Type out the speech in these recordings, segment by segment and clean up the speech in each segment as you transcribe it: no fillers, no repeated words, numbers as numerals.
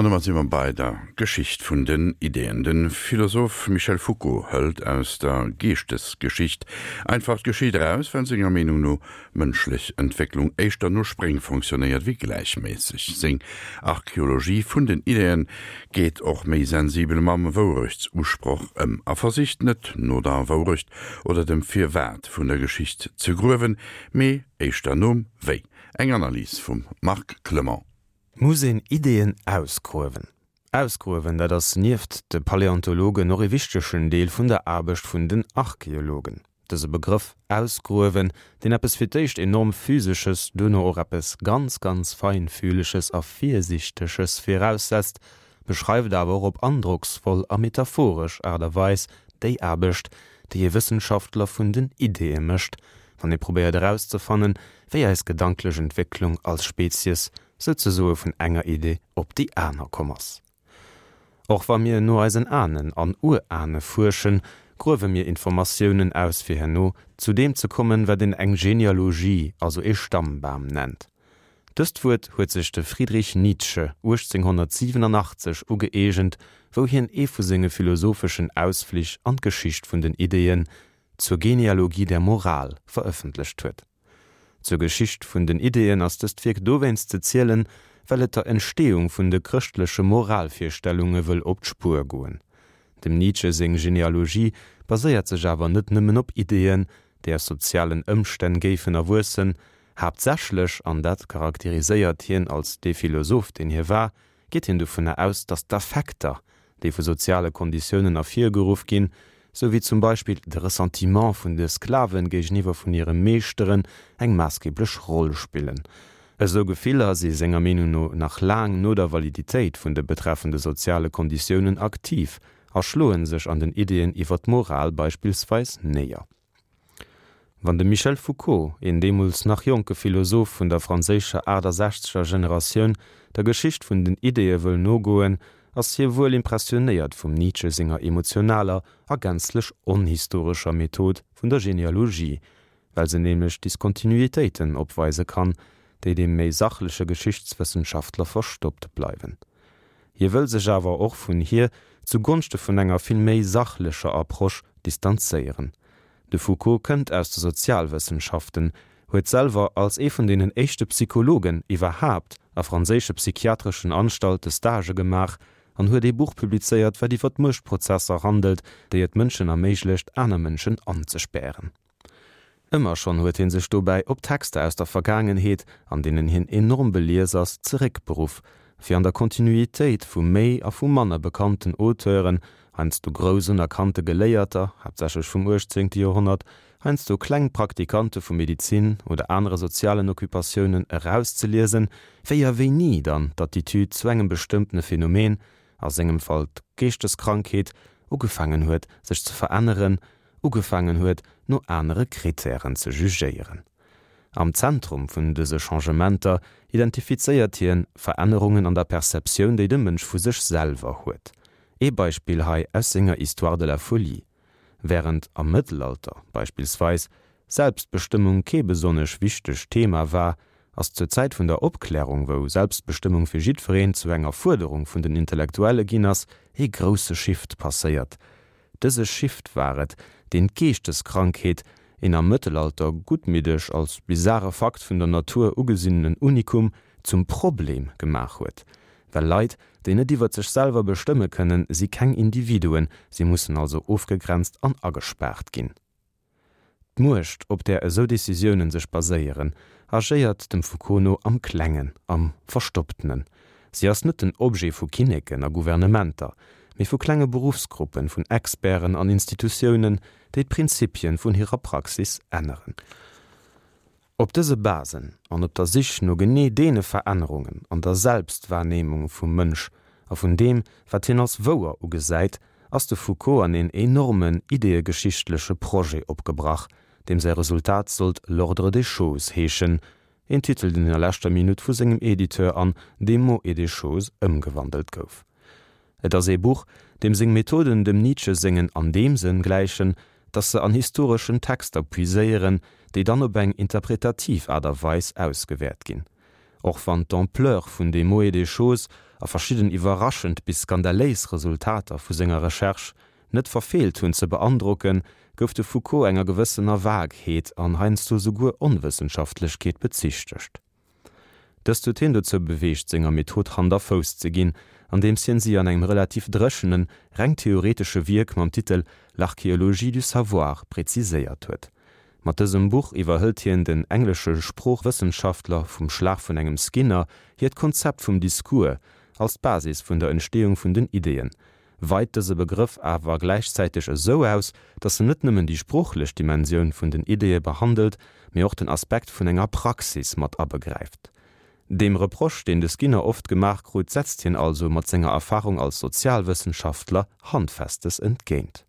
An domat si mer bei der Geschicht vun den Ideeën. De Philosoph Michel Foucault hëlt aus der Geeschtesgeschicht einfach d'Geschicht eraus, well senger Meenung no d'mënschlech Entwécklung éischter no Spréng fonctionnéiert wéi gläichméisseg. Seng Archeologie vun den Ideeën geet och méi sensibel mam Wourechtsusproch ëm a versicht net no der Wourecht oder dem Firwat vun der Geschicht ze gruewen, mee éischter nom Wéi. Eng Analys vum Marc Clement. Muss een Ideeën ausgruewen? Ausgruewen, dat ass nieft de Paläontologen och ee wichtegen Deel vun der Aarbecht vun den Archeologen. Dëse Begrëff ausgruewen, deen eppes fir d'éischt enorm Physesches, duerno och eppes ganz, ganz Feinfühleges a Virsiichteges viraussetzt, beschreift awer och op androcksvoll a metaphoresch Aart a Weis déi Aarbecht, déi ee Wëssenschaftler vun den Ideeë mécht, wann ee probéiert erauszefannen, wéi eis gedanklech Entwécklung als Spezies souzesoe vun enger Idee op déi aner komm ass. Och wa mir no eisen Ahnen an Urahne fuerschen, gruewe mir Informatiounen aus fir herno zu deem ze kommen, wat een eng Genealogie, also ee Stammbam nennt. Dëst Wuert huet sech de Friedrich Nietzsche 1887 ugëeegent, wou hien ee vu senge philosopheschen Ausflich an d'Geschicht vun den Ideeën, Zur Genealogie der Moral verëffentlecht huet. Zur Geschicht vun den Ideeën ass dëst Wierk dowéinst ze zielen, well et der Entsteeung vun de chrëschtleche Moralvirstellunge wëll op d'Spuer goen. Dem Nietzsche seng Genealogie baséiert sech awer net nëmmen op Ideeën, déi aus sozialen Ëmstänn géifen erwuessen. Haaptsächlech, an dat charakteriséiert hien als dee Philosoph, deen hie war, geet hien dovunner aus, datt d'Affekter, déi vu soziale Konditiounen ervirgeruff ginn, sou wéi zum Beispill de Ressentiment vun de Sklaven géigeniwwer vun hire Meeschteren, eng maassgeblech Roll spillen. Esou Gefiller si senger Meenung no nach laang no der Validitéit vun de betreffende soziale Konditiounen aktiv a schloe sech an den Ideeën iwwer d'Moral beispillsweis néier. Wann de Michel Foucault, een deemools nach jonke Philosoph vun der franséischer 68er Generatioun, der Geschicht vun den Ideeë wëll nogoen, ass hie wuel impressionéiert vum Nietzsche senger emotionaler a gänzlech onhistorescher Method vun der Genealogie, well se nämlech Diskontinuitéiten opweise kann, déi dem méi sachleche Geschichtswëssenschaftler verstoppt bleiwen. Hie wëll sech awer och vun hir zu Gonschte vun enger vill méi sachlecher Approche distanzéieren. De Foucault kënnt aus de Sozialwëssenschaften, huet selwer als ee vun deenen éischte Psychologen iwwerhaapt a franséische psychiatreschen Anstalte Stagë gemaach an huet ee Buch publizéiert, wat iwwer d'Muechtprozesser handelt, déi et Mënschen erméiglecht, aner Mënschen anzespären. Ëmmer schonn huet hie sech dobäi op Texter aus der Vergaangenheet, an deenen hien enorm belies ass, zeréckberuff, fir an der Kontinuitéit vu méi a vu manner bekannten Auteuren, heiansdo grouss unerkannte Geléierter, haaptsächlech vum uechtzéngte Joerhonnert, heiansdo kleng Praktikante vu Medizin oder anere sozialen Occupatiounen, erauszeliesen, wéi a wéini dann d'Attitüd zu engem bestëmmtene Phänomen, a sengem Fall d'Geeschteskrankheet, ugefaangen huet, sech ze veränneren, ugefaangen huet, no anere Kritären ze jugéieren. Am Zentrum vun dëse Changementer identifizéiert hien Verännerungen an der Perceptioun, déi de Mënsch vu sech selwer huet. Ee Beispill hei aus senger Histoire de la folie. Wärend am Mëttelalter beispillsweis Selbstbestëmmung kee besonnesch wichtegt Thema war, ass zur Zäit vun der Opklärung, wou Selbstbestëmmung fir jiddwereen zu enger Fuerderung vun den Intellektuelle ginn ass, ee grousse Shift passéiert. Dëse Shift war et, deen d'Geeschteskrankheet, een am Mëttelalter guttmiddeg als bizare Fakt vun der Natur ugesinnenen Unikum, zum Problem gemaach huet. Well Leit, déi net iwwert sech selwer bestëmme kënnen, si keng Individuen, si mussen also ofgegrenzt an agespaart ginn. D'Muecht, op där esou Decisiounen sech baséieren, agéiert dem Foucault no am Klengen, am Verstopptenen. Si ass net den Objet vu Kinneken a Gouvernementer, mee vu klenge Beruffsgruppen, vun Experten an Institutiounen, déi d'Prinzipien vun hirer Praxis änneren. Op dëse Basen an op der Sich no genee deene Verännerungen an der Selbstwahrnehmung vum Mënsch a vun deem, wat hien als wouer ugesäit, ass de Foucault an een enormen ideeëgeschichtleche Projet opgebrach, deem säi Resultat sollt L'ordre des choses heeschen, een Titel, deen a leschter Minutt vu sengem Editeur an Des mots et des choses ëmgewandelt gouf. Et ass ee Buch, deem seng Methoden dem Nietzsche sengen an deem Sënn gläichen, datt se an historeschen Texter puiséieren, déi dann op eng interpretativ Aart a Weis ausgewäert ginn. Och wann d'Ampleur vun Des mots et des choses. a verschidden iwwerraschend bis skandaléis Resultater vu senger Recherche net verfeelt hunn ze beandrocken, gouf de Foucault enger gewëssener Vagheet an heiansdo souguer Onwëssenschaftlechkeet bezichtegt. Dëst huet hien dozou beweegt, senger Method Hand a Fouss ze ginn, andeems hien si an engem relativ dréchenen, reng theoretesche Wierk mam Titel L'archéologie du savoir preziséiert huet. Mat dësem Buch iwwerhëlt hien den englesche Sproochwëssenschaftler vum Schlag vun engem Skinner hiert Konzept vum Discours als d'Basis vun der Entsteeung vun den Ideeën, weit dëse Begrëff awer gläichzäiteg esou aus, datt en net nëmmen déi sproochlech Dimensioun vun den Ideeë behandelt, mee och den Aspekt vun enger Praxis mat abegräift. Deem Reproche, deen de Skinner oft gemaach krut, setzt hien also mat senger Erfarung als Sozialwëssenschaftler Handfestes entgéint.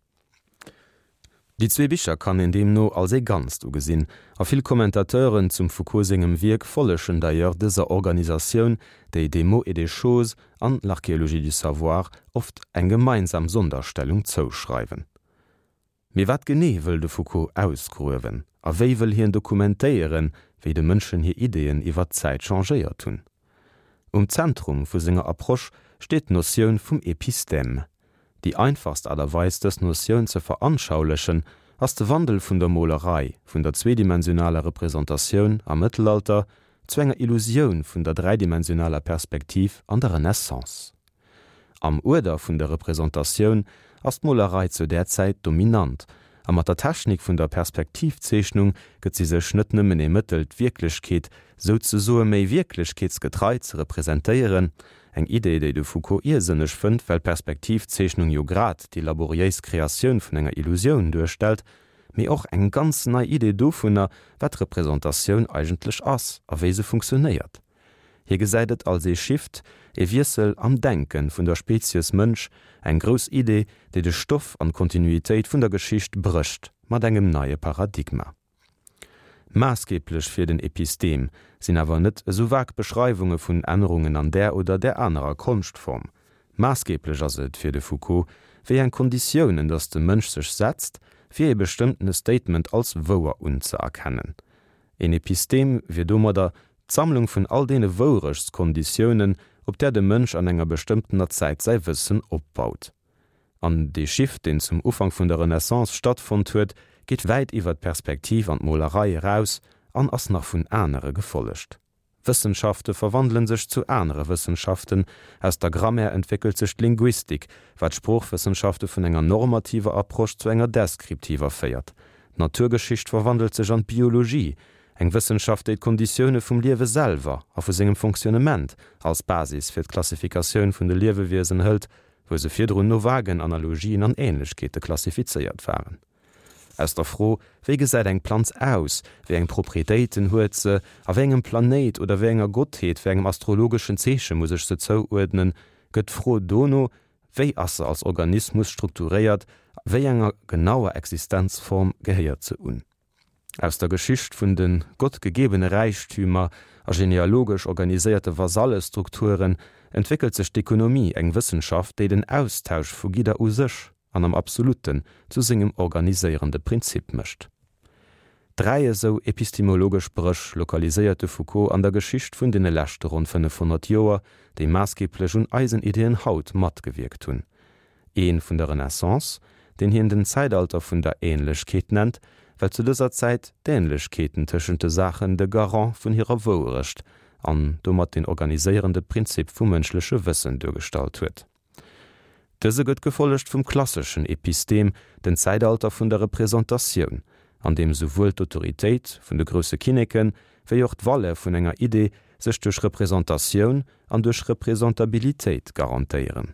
Déi zwee Bicher kann een deemno als ee Ganzt ugesinn, a vill Commentateuren zum Foucault sengem Wierk follegen d'ailleurs dëser Organisatioun, déi Des mots et des choses an L'archéologie du savoir oft eng gemeinsam Sonderstellung zouschreiwen. Mee wat genee wëll de Foucault ausgruewen a wéi wëll hien dokumentéieren, wéi de Mënschen hir Ideeën iwwer d'Zäit changéiert hunn? Um Zentrum vu senger Approche steet d'Notioun vum Epistème. Déi einfachst Aart a Weis dës Notioun ze veranschaulechen, ass de Wandel vun der Molerei, vun der zweedimensionaler Representatioun am Mëttelalter zu enger Illusioun vun der dräidimensionaler Perspektiv an der Renaissance. Am Uerder vun der Representatioun ass d'Molerei zu där Zäit dominant, a mat der Technik vun der Perspektivzeechnung gëtt si sech net nëmmen ee Mëttel d'Wierklechkeet souzesoe méi wierklechkeetsgetrei ze representéieren, eng Idee déi de Foucault iersënneg fënnt, well d'Perspektivzeechnung jo grad déi laboriéis Kreatioun vun enger Illusioun duerstellt, mee och eng ganz nei Idee dovunner, wat Representatioun eigentlech ass a wéi se funktionéiert. Hie gesäit et als ee Shift, ee Wiessel am Denke vun der Spezies Mënsch, eng grouss Idee, déi de Stoff an d'Kontinuitéit vun der Geschicht brécht mat engem neie Paradigma. Maassgeeblech fir den Epistem sinn awer net esou vag Beschreiwunge vun Ännerungen an där oder där anerer Konschtform. Maassgeeblech ass et fir de Foucault, wéi eng Konditiounen datt de Mënsch sech setzt, fir ee bestëmmtene Statement als wouer unzëerkennen. Een Epistem wier domadder d'Sammlung vun all deene Wourechtskonditiounen, op där de Mënsch an enger bestëmmtener Zäit säi Wëssen opbaut. An dee Shift, deen zum Ufank vun der Renaissance stattfonnt huet, geet wäit iwwer d'Perspektiv an d'Molerei eraus an ass nach vun anere gefollegt. Wëssenschafte verwandele sech zu anere Wëssenschaften, aus der Grammaire entwéckelt sech d'Linguistik, wat d'Sproochwëssenschafte vun enger normativer Approche zu enger deskriptiver féiert. D'Naturgeschicht verwandelt sech an d'Biologie, eng Wëssenschaft, déi d'Konditioune vum Liewe selwer a vu sengem Fonctionnement als Basis fir d'Klassifikatioun vun de Liewewiesen hëlt, wou se virdrun no vagen Analogien an Ähnlechkeete klassifizéiert waren. Aus der Fro, Wéi gesäit eng Planz aus, wéi eng Proprietéiten huet se, a wéi engem Planéit oder wéi enger Gottheet, wéi engem astrologeschen Zeeche muss ech se zouuerdnen, gëtt d'Fro dono, Wéi ass se als Organismus strukturéiert, wéi enger genauer Existenzform gehéiert se un? Aus der Geschicht vun de gottgegebene Räichtümer a genealogesch organiséierte Vasallestrukturen entwéckelt sech d'Ekonomie, eng Wëssenschaft, déi den Austausch vu Gidder u sech an am Absoluten zu sengem organiséierende Prinzip mécht. Dräi esou epistemologesch Bréch lokaliséiert de Foucault an der Geschicht vun deene leschte ronn 500 Joer, déi maassgeeblech un eisen Ideeën haut matgewierkt hunn. Ee vun der Renaissance, deen hien den Zäitalter vun der Ähnlechkeet nennt, well zu dëser Zäit d'Ähnlechkeeten tëschent de Saachen de Garant vun hirer Wouerecht an domat den organiséierende Prinzip vum mënschleche Wëssen duergestallt huet. Dëse gëtt gefollegt vum klasseschen Epistem, den Zäitalter vun der Representatioun, an deem souwuel d'Autoritéit vun de grousse Kinneken, wéi och d'Valeur vun enger Idee sech duerch Representatioun an duerch Representabilitéit garantéieren.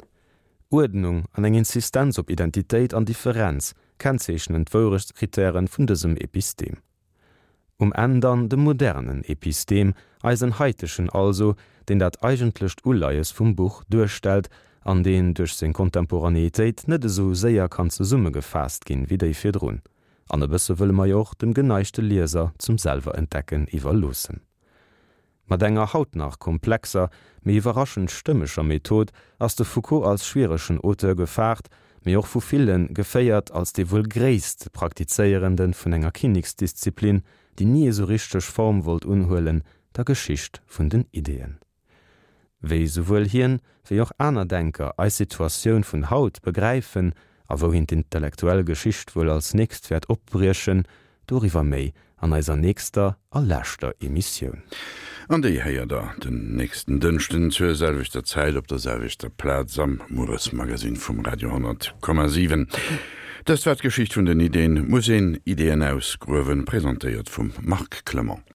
Uerdnung an eng Insistenz op Identitéit an Differenz kennzeechnen d'Wourechtskritäre vun dësem Epistem. Um Enn dann de modernen Epistem, eisen haitegen also, deen dat eigentlecht Uleies vum Buch duerstellt an deen duerch seng Contemporanéitéit net esou séier kann zesummegefaasst ginn wéi déi virdrun. An e bësse wëlle mer jo och dem geneigte Lieser zum Selwerentdecken iwwerloossen. Mat enger haut nach komplexer, mee iwwerraschend stëmmeger Method ass de Foucault als schwieregen Auteur gefaart, mee och vu ville geféiert als dee wuel gréisste Praktizéierende vun enger Kinneksdisziplin, déi ni esou richteg Form wollt unhuelen, der Geschicht vun den Ideeën. Wéi souwuel hien, wéi och aner Denker eis Situatioun vun haut begräifen a wouhin d'intellektuell Geschicht wuel als nächst wäert opbriechen, doriwwer méi an eiser nächster a leschter Emissioun. An déi héiert der den nächsten Dënschden zur selwechter Zäit op der selwechter Plaz am Mueresmagazin vum Radio 10,7. Dëst war d'Geschicht vun den Ideen, Muss een Ideeën ausgruewen? Presentéiert vum Marc Clement.